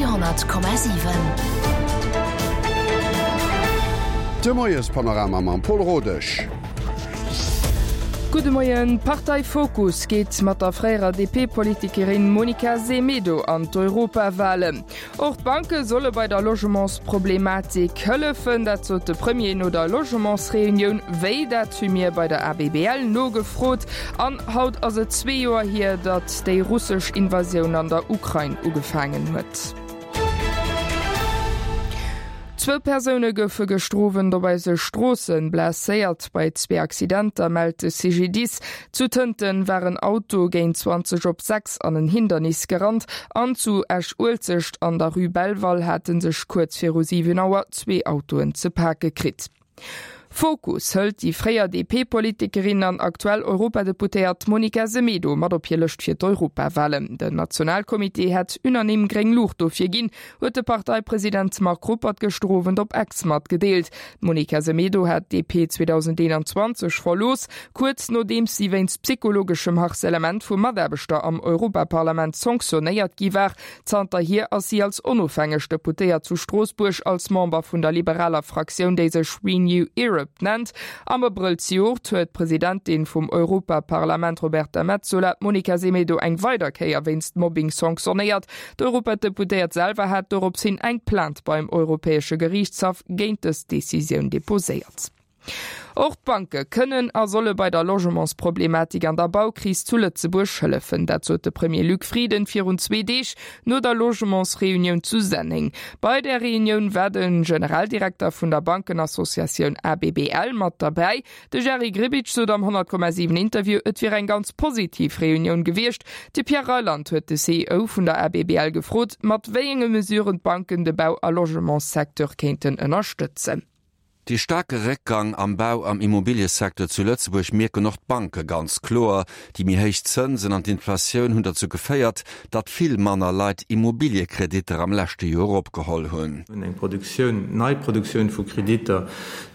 Radio 10,7. De Moiespanorama mam Pol Rodesch. Gudde Moien. D'Partei Fokus geet mat der fréierer DP-Politikerin Monica Semedo an d'Europawalen. Och d'Banke solle bei der Logementsproblematik hëllefen, dat sot de Premier no der Logementsreunioun. Wéi, dat hu mir bei der ABBL nogefrot. An haut ass et zwee Joer hier, datt déi russesch Invasioun an der Ukrain ugefaangen huet. Zwou Persoune goufe gëschter Owend op eise Stroosse blesséiert. Bei zwee Accidenter mellt de CGDIS. Zu Tënten war en Auto géint 20 op 6 an en Hindernis gerannt an zu Esch-Uelzecht an der Rue Belval hate sech kuerz viru 7 Auer zwee Autoen ze pake kritt. Fokus hëlt déi fréier DP-Politikerin an aktuell Europadeputéiert Monica Semedo mat op hir Lëscht fir d'Europawalen. Den Nationalcomité hätt unanime gréng Luucht dofir ginn, huet de Parteipresident Marc Ruppert gëschter Owend op Ex matgedeelt. D'Monica Semedo hat d'DP 2021 verlooss, kuerz nodeems si wéinst psychologeschem Harcèlement vu Mataarbechter am Europaparlament sanctionéiert gi war. Zanterhier ass si als onofhängeg Deputéiert zu Stroossbuerg als Member vun der liberaler Fraktioun, déi sech Renew Europe nennt. Am Abrëll zejoert huet d'Presidentin vum Europaparlament Roberta Metsola d'Monica Semedo eng weider Kéier wéinst Mobbing sanctionéiert. D'Europadeputéiert selwer hat dorops hin eng Plainte beim Europäesche Geriichtshaff géint dës Decisioun deposéiert. Och d'Banke kënnen a solle bei der Logementsproblematik an der Baukris zu Lëtzebuerg hëllefen. Dat sot de Premier Luc Frieden virun zwee Deeg no der Logementsreunioun zu Senneng. Bei där Reunioun war de Generaldirekter vun der Bankenassociatioun ABBL mat derbäi. De Jerry Grbic sot am 100,7 Interview, et wier eng ganz positiv Reunioun gewiescht. De Pierre Reyland huet de CEO vun der ABBL gefrot, mat wéi enge Mesuren d'Banken de Bau a Logementssecteur kéinten ënnerstëtzen. Dee staarke Réckgang am Bau am Immobiliësecteur zu Lëtzebuerg mierken och d'Banke ganz kloer. Déi méi héich Zënsen an d'Inflatioun hunn derzou geféiert, datt vill manner Leit Immobiliekreditter am leschte Joer opgeholl hunn. Eng Produktioun, nei Produktioun vu Kreditter,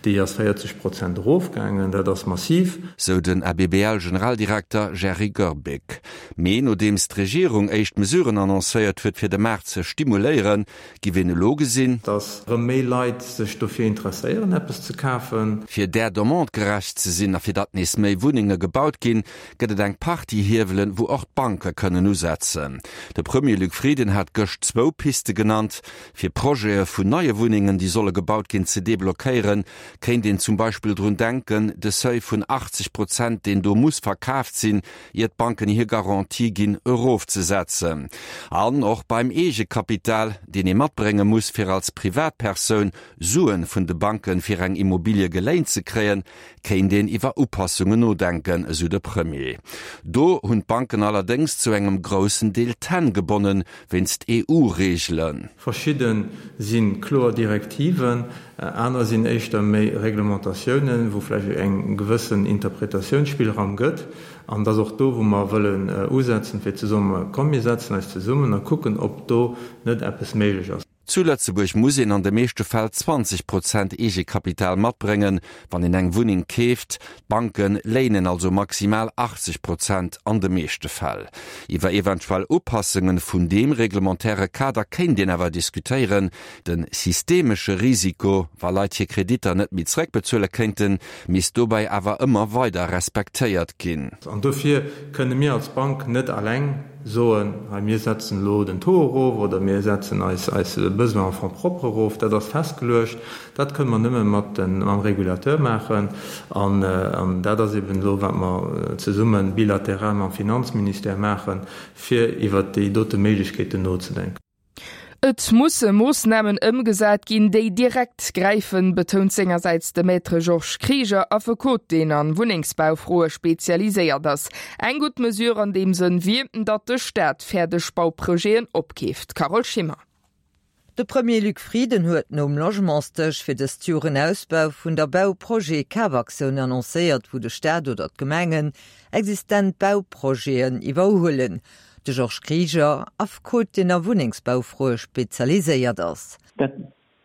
déi ass 40 Prozent erofgaangen. Dat ass massiv. Sou den ABBL-Generaldirekter Jerry Goerbeck. Mee nodeems d'Regierung éischt Mesuren annoncéiert huet, fir de Maart ze stimuléieren, giff een elo gesinn, Datt erëm méi Leit sech dofir interesséieren, eppes ze kafen. Fir där Demande gerecht ze sinn a fir datt nees méi Wunnenge gebaut ginn, gëtt et eng Partie Hiewelen, wou och d'Banke kënnen usetzen. De Premier Luc Frieden hat gëscht zwou Piste genannt. Fir Projete vun neie Wunnengen, déi solle gebaut ginn, ze deblockéieren, kéint een zum Beispill drun denken, de Seuil vun 80 Prozent, deen do muss verkaaft sinn, ier d'Banken hir Garantie ginn, erofzesetzen. An och beim Eegekapital, deen ee matbrénge muss, fir als Privatpersoun Suen vun de Banken fir eng Immobilie geléint ze kréien, kéint een iwwer Upassungen nodenken, esou de Premier. Do hunn d'Banken allerdéngs zu engem groussen Deel d'Hänn gebonnen, wéinst EU-Reegelen. Verschidde si kloer Direktiven, aner sinn éischter méi Reglementatiounen, wou vläicht eng gewëssen Interpretatiounsspillraum gëtt. An et ass och do, wou mer wëllen usetzen, fir ze soen, Komm mir setzen eis zesummen a kucken, ob do net eppes méiglech ass. Zu Lëtzebuerg muss een an de meeschte Fäll 20 Prozent Eegekapital matbréngen, wann een eng Wunneng keeft. D'Banke léinen also maximal 80 Prozent an de meeschte Fäll. Iwwer eventuell Upassunge vun deem reglementaire Kader kéint een awer diskutéieren. De systemesche Risiko, wa Leit hir Kreditter net méi zeréckbezuele kéinten, misst dobäi awer ëmmer weider respektéiert ginn. An dofir kënne mir als Bank net alleng soen, hei mir setzen elo den Taux erof oder mir setzen eis eis Besoin en fonds propres erof, dat ass festgeluecht, dat kënne mer nëmme mat den, mam Régulateur maachen. An, an dat ass eben elo wat mer zesumme bilateral mam Finanzministère maachen, fir iwwert déi dote Méiglechkeeten nozedenken. Et musse Moossnamen ëmgesat ginn, déi direkt gräifen, betount sengersäits de Maître Georges Krieger, Affekot, deen an Wunnengsbaufroe spezialiséiert ass. Eng gutt Mesure an deem Sënn wier, datt de Staat fäerdeg Bauprojeten opkeeft. Carole Schimmer. De Premier Luc Frieden huet nom Logementsdësch fir dëst Joer en Ausbau vun der Bauprojet-Kafaktioun annoncéiert, wou de Staat oder d'Gemengen existent Bauprojeten iwwerhuelen. De Georges Krieger, Affekot, deen a Wunnengsbaufroe spezialiséiert ass. Datt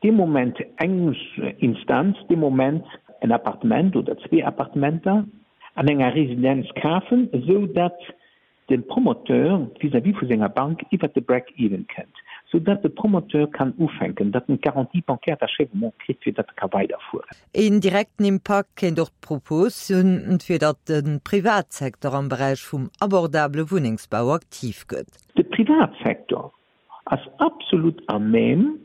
dee Moment eng Instanz dee Moment en Appartement oder zwee Appartementer an enger Residenz kafen, esou datt de Promoteur vis-à-vis vu senger Bank iwwert de Break-even kënnt. Sou datt de Promoteur kann ufänken, datt en d'Garantie bancaire d'achèvement kritt, fir datt e ka weiderfueren. Een direkten Impakt kéint och d'Propos hunn, fir datt de Privatsecteur am Beräich vum abordabele Wunnengsbau aktiv gëtt. De Privatsecteur ass absolut à même,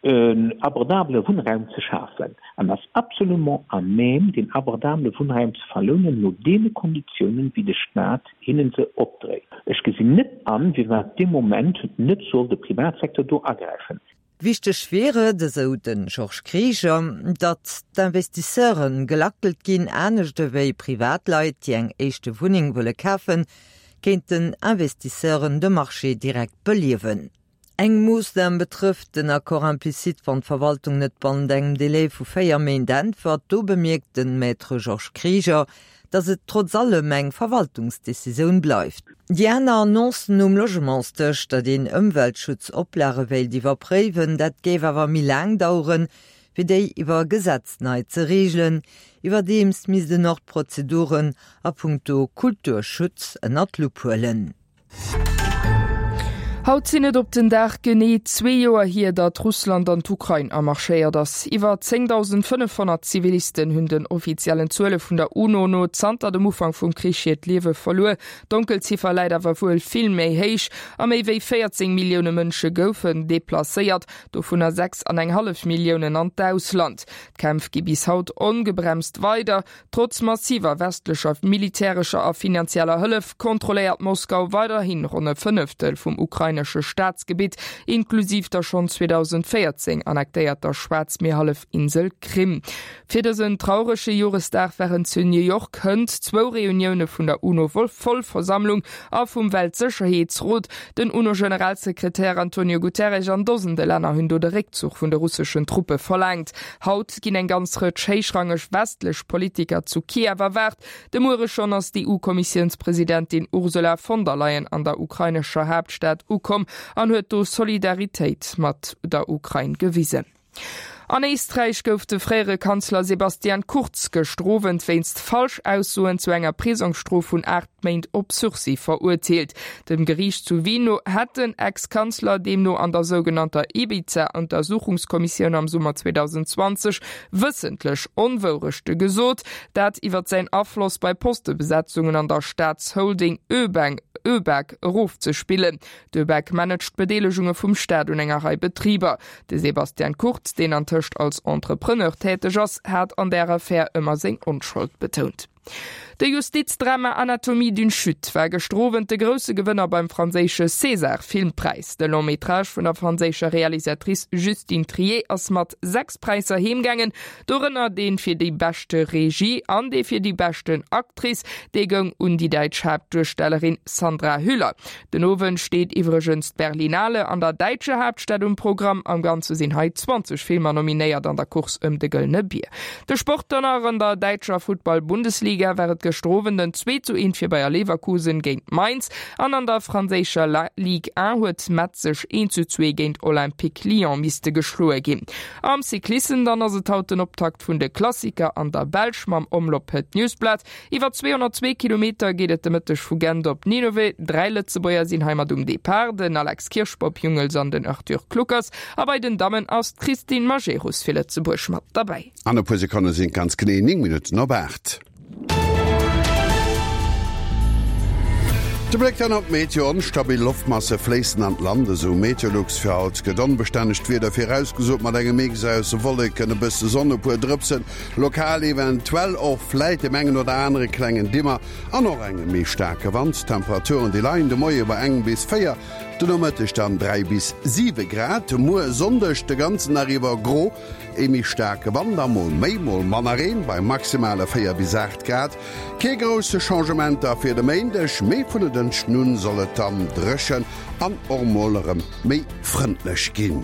en abordabele Wunnraum ze schafen an ass absolument à même, deen abordabele Wunnraum ze verlounen no deene Konditiounen, wéi de Stat hinnen se opdréit. Ech gesinn net an, firwat dee Moment net soll de Privatsecteur do agräifen. Wichteg wier et, esou de Georges Krieger, datt d'Investisseure gelackelt ginn. Anescht ewéi Privatleit, déi eng éischte Wunneng wëlle kafen, kéinten Investisseuren de Marché direkt beliewen. Eng Moossnam betrëfft den Accord implicite, wann d'Verwaltung net bannent engem Delai vu 4 Méint äntwert. Do bemierkt de Maître Georges Krieger, datt et trotz allem eng Verwaltungsdecisioun bleift. Déi aner Annoncen um Logementsdësch, datt een Ëmweltschutzoplage wéilt iwwerpréiwen, dat géif awer méi laang daueren, fir déi iwwer Gesetz nei ze reegelen. Iwwerdeems misst en och d'Prozeduren a punkto Kulturschutz ënnert d'Lupp huelen. Haut sinn et op den Dag genee zwee Joer hier, datt Russland an d'Ukrain amarschéiert ass. Iwwer 10.500 Zivilisten hunn den offiziellen Zuele vun der UNO no zanter dem Ufank vum Krich hiert Liewe verluer. D'Donkelziffer läit awer wuel vill méi héich. A méi wéi 14 Millioune Mënsche goufen deplacéiert, dovunner 6 an eng hallef Milliounen an d'Ausland. D'Kämpf gi bis haut ongebremst weider. Trotz massiver westlecher militärescher a finanzieller Hëllef kontrolléiert Moskau weiderhi ronn e Fënneftel vum ukrainesche Staatsgebitt, inklusiv der schonn 2014 annektéierter Schwaarzmierhallefinsel Krim. Fir dësen traurege Joresdag waren zu New York hënt zwou Reunioune vun der UNO-Vollversammlung a vum Weltsécherheetsrot. Den UNO-Generalsekretär Antonio Guterres an Dosende Länner hunn do de Réckzuch vun de russeschen Truppe verlaangt. Haut ginn eng ganz Rëtsch héichrangeg westlech Politiker zu Kiew erwaart. De Muere schonn ass d'EU-Kommissiounspresidentin Ursula von der Leyen an der ukrainescher Haaptstad ukomm an huet do Solidaritéit mat der Ukrain gewisen. An Éisträich gouf de fréiere Kanzler Sebastian Kurz gëschter Owend wéinst Falschaussoen zu enger Prisongsstrof vun 8 Méint op Sursis verurteelt. Dem Geriicht zu Wien no hätt den Ex-Kanzler deemno an der sougenannter Ibiza-Untersuchungskommissioun am Summer 2020 wëssentlech Onwourechte gesot, dat iwwer säin Afloss bei Postebesetzungen an der Staatsholding ÖBAG erofzespillen. D'ÖBAG managt d'Bedeelegunge vum Staat un enger Rei Betriber. De Sebastian Kurz, deen antëscht als Entrepreneur täteg ass, hat an där Affär ëmmer seng Onschold betount. De Justizdrama Anatomie d'une chute war gëschter Owend de grousse Gewënner beim franséische César-Filmpräis. De Long-métrage vun der franséischer Realisatrice Justine Triet ass mat 6 Präisser heemgaangen, dorënner dee fir déi beschte Regie an dee fir déi beschten Actrice, dee goung un déi däitsch Haaptduerstellerin Sandra Hüller. Den Owend steet iwwregens d'Berlinale an der däitscher Haaptstad um Programm. Am Ganze sinn hei 20 Filmer nominéiert an der Course ëm de Gëllene Bier. De Sport dann nach, An der däitscher Futtball-Bundesliga war et gëschter Owend en 2 zu 1 fir Bayer Leverkusen géint Mainz an an der franséischer Ligue 1 huet Metz sech 1 zu 2 géint Olympique Lyon misste geschloe ginn. Am Cyclissem dann ass et haut den Optakt vun de Klassiker an der Belsch mam Omloop Het Nieuwsblad. Iwwer 202 Kilometer geet et de Mëtteg vu Gent op Ninove. 3 Lëtzebuerger sinn heimat um Depart, den Alex Kirsch, Bob Jungels an den Arthur Kluckers. A bei den Dammen ass d'Christine Majerus fir Lëtzebuerg mat derbäi. An e puer Sekonne sinn et ganz genee 9 Minutten op 8. De Bléck dann op d'Meteo, Onstabil Loftmasse fléissen an d'Land, esou Meteolux. Fir haut gëtt onbestännegt Wieder virausgesot, mat engem Mix aus Wolleken, e bësse Sonn, e puer Drëpsen Lokal eventuell och vläit deem engen oder anere klengen Dimmer an och engem méi staarke Wand. D'Temperaturen déi leien de Moie bei engem bis 4, de Nomëtteg dann 3 bis 7 Grad. Muer Sonndeg de ganzen Dag iwwer gro, ee méi staarke Wand a mol méi, mol manner Reen bei maximale 4 bis 8 Grad. Kee grousse Changementer fir de Méindeg, mee vun e Dënschden un soll et dann dréchen an och mol erëm méi frëndlech ginn.